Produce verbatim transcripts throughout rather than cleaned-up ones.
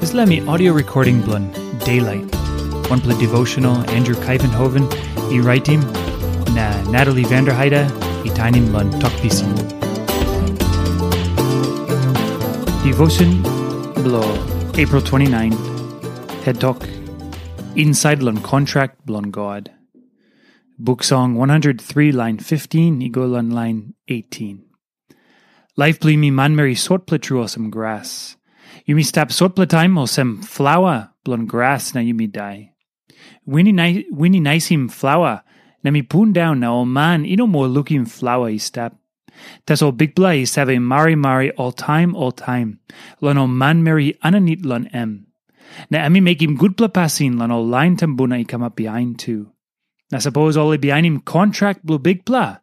Dispela mi audio recording bilong Daylight. Wanpela devotional Andrew Kaivenhoven i raitim, na Natalie Vanderheide i tainim long Tok Pisin. Devotion bilong April twenty-nine, head tok, Inside long kontrak bilong God. Buk Song one hundred three, lain fifteen i go long lain eighteen. Laip bilong yumi manmeri sotpela tru olsem gras. Yumi stap sotpela taim olsem flaua bilong gras na yumi dai. Win i nai-, win i naisim flaua, na mi pundaun na ol man i no moa lukim flaua i stap. Tasol Bikpela i save marimari oltaim oltaim long ol manmeri aninit long em. Na em i mekim gutpela pasin long ol lain tumbuna i kamap bihain tu. Na sapos ol i bihainim kontrak bilong Bikpela,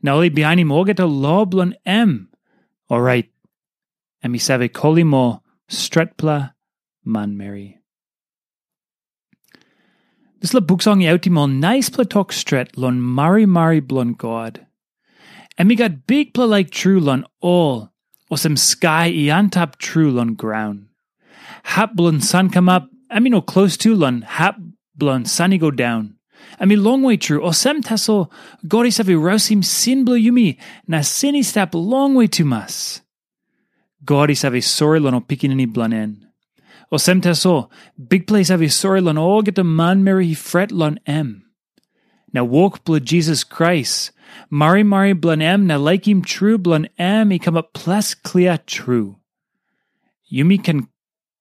na ol i bihainim olgeta lo bilong em, orait em i save kolim ol stretpela manmeri. Dispela buk song i autim ol naispela tok stret long marimari bilong God. Em i gat bikpela laik tru long ol, olsem skai i antap tru long graun. Hap bilong san kamap, em i no klostu long hap bilong san i go daun. Em i longwe tru, olsem tasol God i save rausim sin bilong yumi, na sin i stap longwe tumas. God i save sori long ol pikinini bilong en. Olsem tasol, Bikpela i save sori long olgeta manmeri i fret long em. Na wok bilong Jisas Krais, marimari bilong em na laikim tru bilong em i kamap ples klia tru. Yumi ken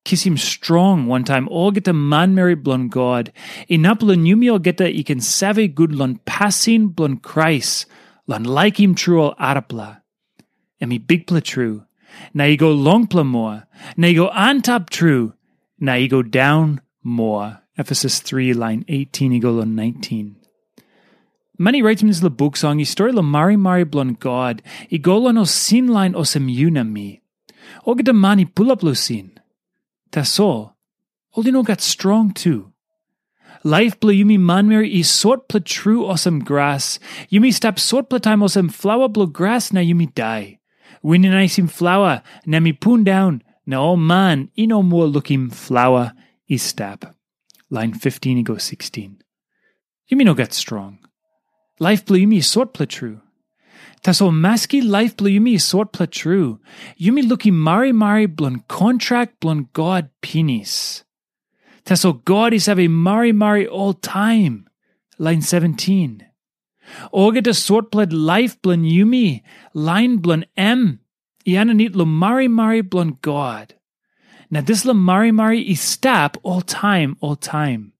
kisim strong wantaim olgeta manmeri bilong God, inap long yumi olgeta i ken save gut long pasin bilong Krais, long laikim tru ol arapela. Em i bikpela tru, na i go longpela moa, na i go antap tru, na i go daun moa. Efesus three, lain eighteen i go long nineteen. Man i raitim dispela buk song i stori long marimari bilong God i go long ol sin lain olsem yu na mi. Olgeta man i pulap long sin. Tasol, ol i no gat strong tu. Laip bilong yumi manmeri i sotpela tru olsem gras. Yumi stap sotpela taim olsem flaua bilong gras na yumi dai. Win i naisim flaua, na em i pundaun, na ol man i no moa lukim flaua i stap. Lain fifteen i go sixteen. Yumi no gat strong. Laip bilong yumi i sotpela tru. Tasol maski laip bilong yumi i sotpela tru, yumi lukim marimari bilong kontrak bilong God pinis. Tasol God i save marimari oltaim. Lain seventeen. Olgeta sotpela laip bilong yumi, lain bilong em, i aninit long marimari bilong God. Na dispela marimari i stap oltaim oltaim.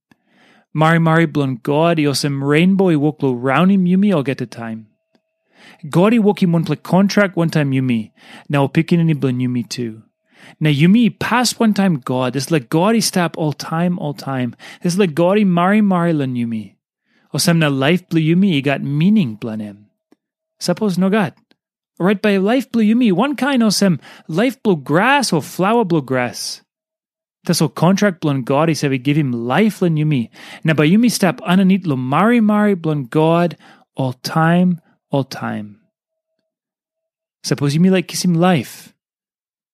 Marimari bilong God i olsem reinbo i wok long raunim yumi olgeta taim. God i wokim wanpela kontrak wantaim yumi, na ol pikinini bilong yumi tu. Na yumi i pas wantaim God, dispela God i stap oltaim oltaim, dispela God i marimari long yumi. Olsem na laip bilong yumi i gat mining bilong em. Sapos nogat, orait bai laip bilong yumi wankain olsem laip bilong gras o flaua bilong gras. Tasol kontrak bilong God i save givim laip long yumi, na bai yumi stap aninit long marimari bilong God oltaim oltaim. Sapos yumi laik kisim laip,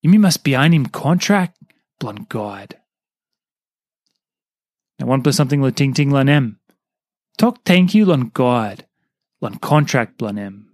yumi mas bihainim kontrak bilong God. Na wanpela samting long tingting long em. Tok tenkyu long God, long kontrak bilong em.